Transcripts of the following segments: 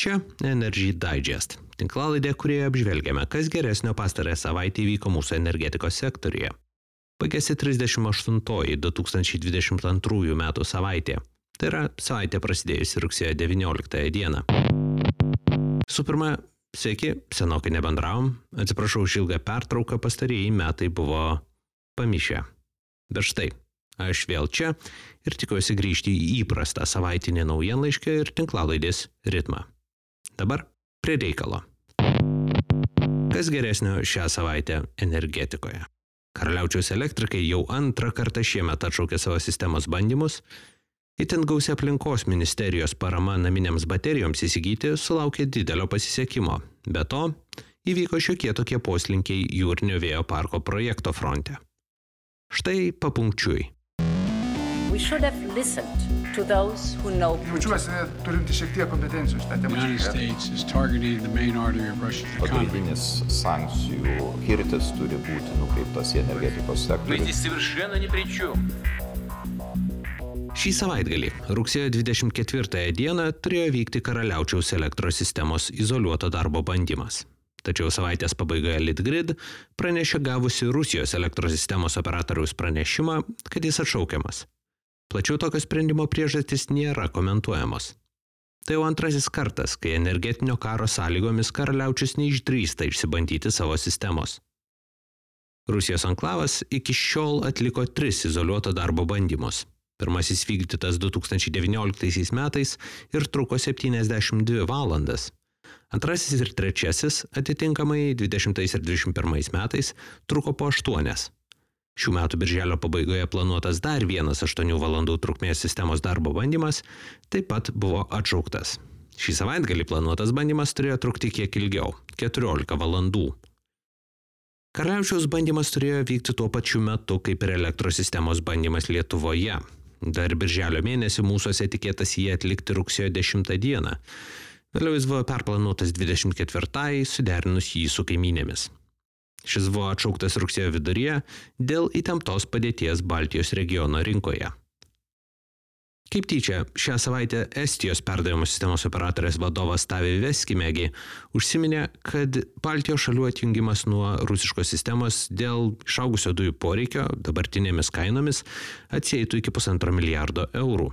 Čia Energy Digest, tinklalaidė, kurioje apžvelgiame, kas geresnio pastarąją savaitę įvyko mūsų energetikos sektoriuje. Baigėsi 38-oji 2022 metų savaitė. Tai yra savaitė prasidėjusi rugsėjo 19 dieną. Su pirma, sveiki, senokai nebendravom. Atsiprašau už ilgą pertrauką, pastarieji metai buvo pamišę. Bet štai, aš vėl čia ir tikiuosi grįžti į įprastą savaitinį naujienlaiškį ir tinklalaidės ritmą. Dabar prie reikalo. Kas geresnio šią savaitę energetikoje? Karaliaučiaus elektrikai jau antrą kartą šiemet atšaukė savo sistemos bandymus. Itin gausi aplinkos ministerijos parama naminėms baterijoms įsigyti sulaukė didelio pasisekimo. Be to, įvyko šiokie tokie poslinkiai jūrinio vėjo parko projekto fronte. Štai papunkčiui. We should have listened to those who know. Jaučiuosi turinti šiek tiek kompetencijų šitą temą. United States is targeting the main artery of Russia's economy. Pagrindinis sankcijų kirtis turi būti nukreiptas į energetikos sektorių. Šį savaitgalį, rugsėjo 24 dieną, turėjo vykti Karaliaučiaus elektros sistemos izoliuoto darbo bandymas. Tačiau savaitės pabaigoje Litgrid pranešė gavusi Rusijos elektros sistemos operatoriaus pranešimą, kad jis atšaukiamas. Plačiau tokio sprendimo priežastys nėra komentuojamos. Tai jau antrasis kartas, kai energetinio karo sąlygomis Karaliaučius neišdrįsta išsibandyti savo sistemos. Rusijos anklavas iki šiol atliko 3 izoliuoto darbo bandymus. Pirmasis vykdytas 2019 metais ir truko 72 valandas. Antrasis ir trečiasis, atitinkamai 20 ir 21 metais, truko po 8. Šių metų birželio pabaigoje planuotas dar vienas 8 valandų trukmės sistemos darbo bandymas taip pat buvo atšauktas. Šį savaitgalį planuotas bandymas turėjo trukti kiek ilgiau – 14 valandų. Karaliaučiaus bandymas turėjo vykti tuo pačiu metu, kaip ir elektros sistemos bandymas Lietuvoje. Dar birželio mėnesį mūsuose tikėtas jį atlikti rugsėjo 10 dieną. Vėliau jis buvo perplanuotas 24-ai, suderinus jį su kaimynėmis. Šis buvo atšauktas rugsėjo viduryje dėl įtemptos padėties Baltijos regiono rinkoje. Kaip tyčia, šią savaitę Estijos perdavimo sistemos operatorės vadovas Taavi Veskimägi užsiminė, kad Baltijos šalių atjungimas nuo rusiškos sistemos dėl išaugusio dujų poreikio dabartinėmis kainomis atsieitų iki 1,5 milijardo eurų.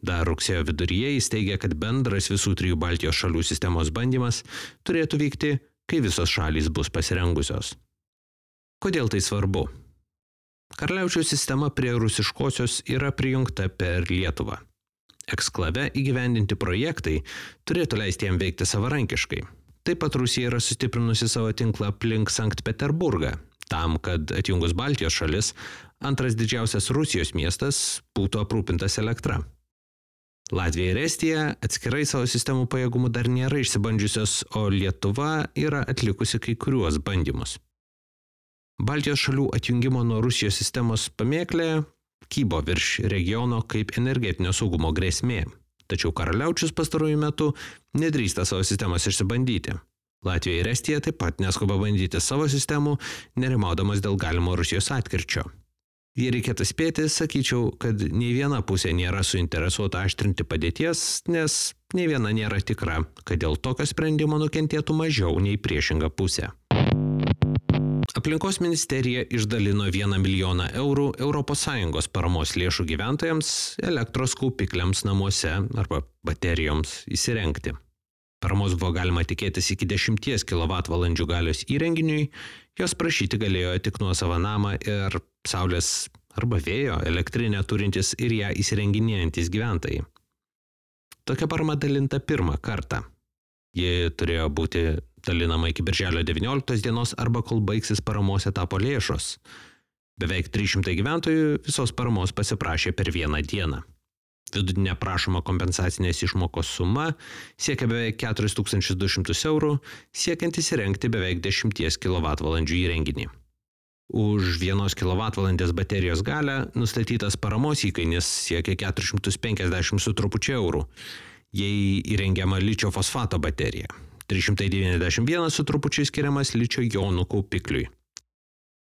Dar rugsėjo viduryje jis teigia, kad bendras visų 3 Baltijos šalių sistemos bandymas turėtų vykti, kai visos šalys bus pasirengusios. Kodėl tai svarbu? Karaliaučiaus sistema prie rusiškosios yra prijungta per Lietuvą. Eksklave įgyvendinti projektai turėtų leisti jam veikti savarankiškai. Taip pat Rusija yra sustiprinusi savo tinklą aplink Sankt Peterburgą, tam, kad atjungus Baltijos šalis, antras didžiausias Rusijos miestas būtų aprūpintas elektra. Latvija ir Estija atskirai savo sistemų pajėgumų dar nėra išsibandžiusios, o Lietuva yra atlikusi kai kuriuos bandymus. Baltijos šalių atjungimo nuo Rusijos sistemos pamėklė kybo virš regiono kaip energetinio saugumo grėsmė. Tačiau Karaliaučius pastaruoju metu nedrįsta savo sistemos išsibandyti. Latvija ir Estija taip pat neskuba bandyti savo sistemų, nerimaudamas dėl galimo Rusijos atkirčio. Jei reikėtų spėti, sakyčiau, kad nei viena pusė nėra suinteresuota aštrinti padėties, nes nei viena nėra tikra, kad dėl tokio sprendimo nukentėtų mažiau nei priešinga pusė. Aplinkos ministerija išdalino 1 milijoną eurų ES paramos lėšų gyventojams elektros kaupikliams namuose arba baterijoms įsirengti. Paramos buvo galima tikėtis iki 10 kWh galios įrenginiui, jos prašyti galėjo tik nuosavą namą ir saulės arba vėjo elektrinę turintis ir ją įsirenginėjantis gyventojai. Tokia parama dalinta pirmą kartą. Ji turėjo būti dalinama iki birželio 19 dienos arba kol baigsis paramos etapo lėšos. Beveik 300 gyventojų visos paramos pasiprašė per vieną dieną. Vidutinė prašoma kompensacinės išmokos suma siekia beveik 4200 eurų, siekiant įsirengti beveik 10 kWh įrenginį. Už 1 kWh baterijos galią nustatytas paramos įkainis siekia 450 su trupučiu eurų, jei įrengiama ličio fosfato baterija. 391 su trupučiu skiriamas ličio jonų kaupikliui.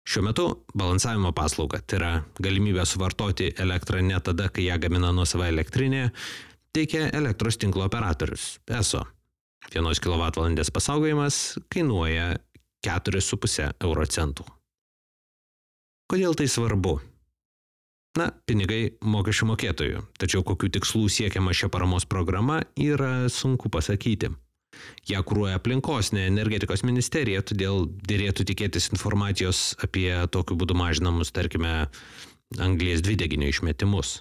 Šiuo metu balansavimo paslauga, tai yra galimybė suvartoti elektrą ne tada, kai ją gamina nuosava elektrinė, teikia elektros tinklo operatorius ESO 1 kWh pasaugojimas kainuoja 4,5 euro centų. Kodėl tai svarbu? Na, pinigai mokesčių mokėtojų, tačiau kokių tikslų siekiama šia paramos programa yra sunku pasakyti. Ją kuruoja aplinkos, ne energetikos ministerija, todėl dėrėtų tikėtis informacijos apie tokiu būdu mažinamus, tarkime, anglies dvideginio išmetimus.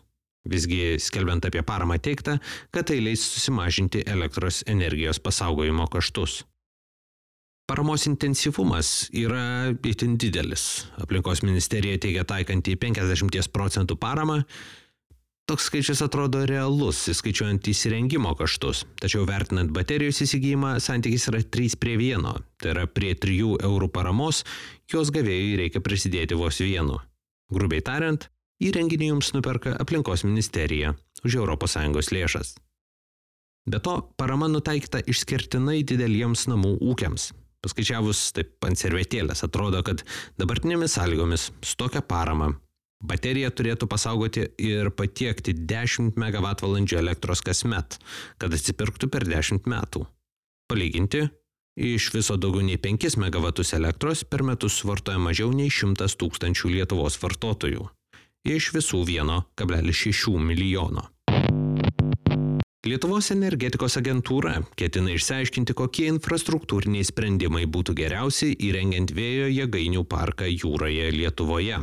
Visgi, skelbiant apie paramą teigta, kad tai leis susimažinti elektros energijos pasaugojimo kaštus. Paramos intensyvumas yra itin didelis. Aplinkos ministerija teigia taikanti 50% paramą. Toks skaičius atrodo realus, įskaičiuojant įsirengimo kaštus. Tačiau vertinant baterijos įsigijimą, santykis yra 3:1. Tai yra prie 3 eurų paramos, jos gavėjui reikia prisidėti vos 1. Grubiai tariant, įrenginį jums nuperka aplinkos ministerija už ES lėšas. Be to, parama nutaikyta išskirtinai dideliems namų ūkiams. Paskaičiavus taip ant servetėlės, atrodo, kad dabartinėmis sąlygomis su tokia parama baterija turėtų pasaugoti ir patiekti 10 MWh elektros kasmet, kad atsipirktų per 10 metų. Palyginti, iš viso daugiau nei 5 MW elektros per metus suvartoja mažiau nei 100 000 Lietuvos vartotojų. Iš visų 1,6 milijono. Lietuvos energetikos agentūra ketina išsiaiškinti, kokie infrastruktūriniai sprendimai būtų geriausi įrengiant vėjo jėgainių parką jūroje Lietuvoje.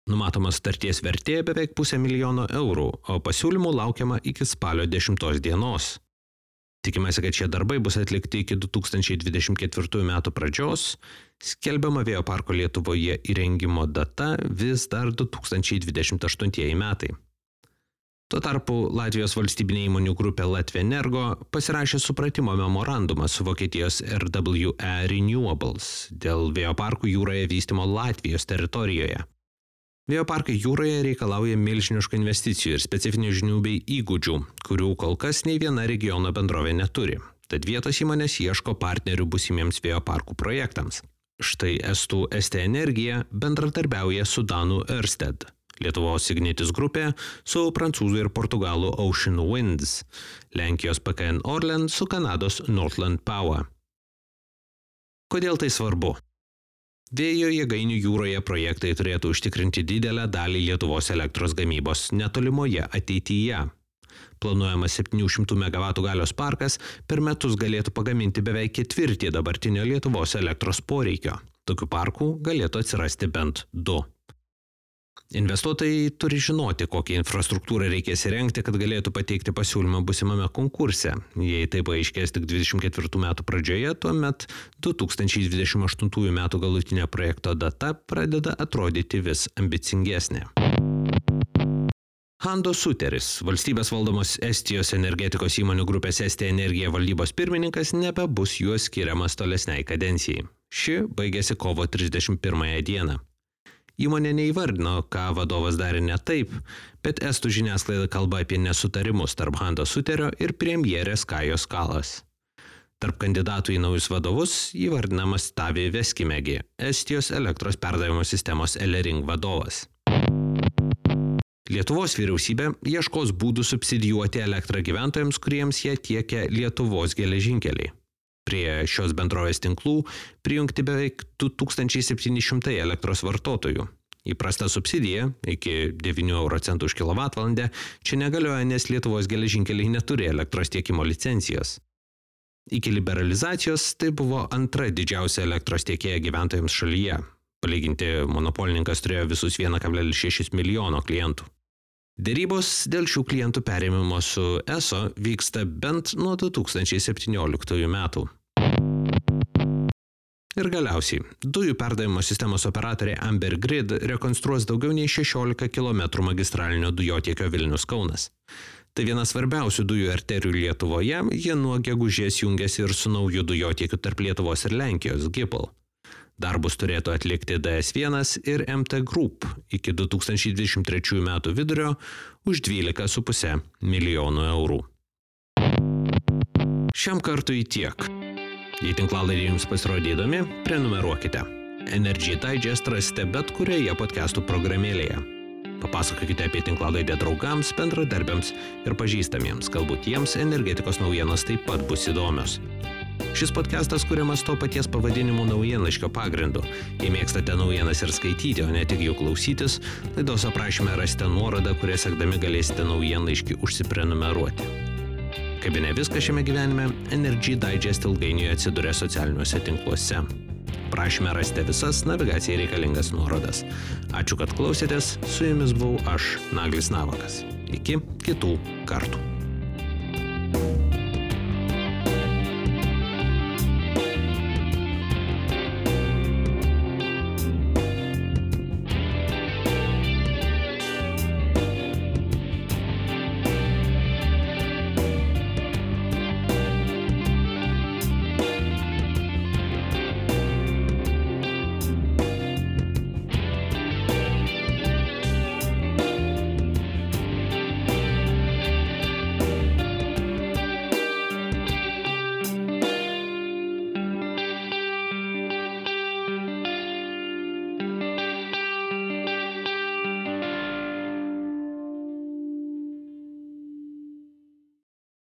Numatoma sutarties vertė beveik 500 000 eurų, o pasiūlymų laukiama iki spalio 10 dienos. Tikimasi, kad šie darbai bus atlikti iki 2024 metų pradžios, skelbiama vėjo parko Lietuvoje įrengimo data vis dar 2028 metai. Tuo tarpu Latvijos valstybinė įmonių grupė Latvenergo pasirašė supratimo memorandumą su Vokietijos RWE Renewables dėl vėjo parkų jūroje vystymo Latvijos teritorijoje. Vėjo parkai jūroje reikalauja milžiniškų investicijų ir specifinių žinių bei įgūdžių, kurių kol kas nei viena regiono bendrovė neturi. Tad vietos įmonės ieško partnerių būsimiems vėjo parkų projektams. Štai estų ST Energija bendradarbiauja su danų Ørsted, Lietuvos Ignitis grupė su prancūzų ir portugalų Ocean Winds, Lenkijos PKN Orlen su Kanados Northland Power. Kodėl tai svarbu? Vėjo jėgainių jūroje projektai turėtų užtikrinti didelę dalį Lietuvos elektros gamybos netolimoje ateityje. Planuojamas 700 MW galios parkas per metus galėtų pagaminti beveik ketvirtį dabartinio Lietuvos elektros poreikio. Tokių parkų galėtų atsirasti bent 2. Investuotojai turi žinoti, kokią infrastruktūrą reikės įrengti, kad galėtų pateikti pasiūlymą būsimame konkurse. Jei tai paaiškės tik 24 metų pradžioje, tuomet 2028 metų galutinė projekto data pradeda atrodyti vis ambicingesnė. Hando Suteris, valstybės valdomos Estijos energetikos įmonių grupės ST Energija valdybos pirmininkas, nebebus juo skiriamas tolesniai kadencijai. Ši baigėsi kovo 31 dieną. Įmonė neįvardino, ką vadovas darė ne taip, bet estų žiniasklaida kalba apie nesutarimus tarp Hando Suterio ir premjerės Kajos Kalas. Tarp kandidatų į naujus vadovus įvardinamas Tavi Veskimegi, Estijos elektros perdavimo sistemos Elering vadovas. Lietuvos vyriausybė ieškos būdų subsidijuoti elektrą gyventojams, kuriems jie tiekia Lietuvos geležinkeliai. Prie šios bendrovės tinklų prijungti beveik 2700 elektros vartotojų. Įprasta subsidija iki 9 euro centų už kilovatvalandę čia negalioja, nes Lietuvos geležinkeliai neturi elektros tiekimo licencijos. Iki liberalizacijos tai buvo antra didžiausia elektros tiekėja gyventojams šalyje. Palyginti, monopolininkas turėjo visus 1,6 milijono klientų. Dėrybos dėl šių klientų perėmimo su ESO vyksta bent nuo 2017 metų. Ir galiausiai, dujų perdavimo sistemos operatorė Amber Grid rekonstruos daugiau nei 16 km magistralinio dujotiekio Vilnius-Kaunas. Tai viena svarbiausių dujų arterijų Lietuvoje, jie nuo gegužės jungiasi ir su nauju dujotiekiu tarp Lietuvos ir Lenkijos GIPL. Darbus turėtų atlikti DS1 ir MT Group iki 2023 metų vidurio už 12,5 milijonų eurų. Šiam kartui tiek. Jei tinklalaidė jums pasirodė įdomi, prenumeruokite. Energy Digest rasite bet kurioje podcastų programėlėje. Papasakokite apie tinklalaidę draugams, bendradarbiams ir pažįstamiems, galbūt jiems energetikos naujienos taip pat bus įdomios. Šis podcastas kuriamas to paties pavadinimo naujienlaiškio pagrindu. Jei mėgstate naujienas ir skaityti, o ne tik jų klausytis, laidos aprašyme rasite nuorodą, kuria sekdami galėsite naujienlaiškį užsiprenumeruoti. Kaip ne viskas šiame gyvenime, Energy Digest ilgainiui atsiduria socialiniuose tinkluose. Prašyme rasite visas navigacijai reikalingas nuorodas. Ačiū, kad klausėtės, su jumis buvau aš, Naglis Navakas. Iki kitų kartų.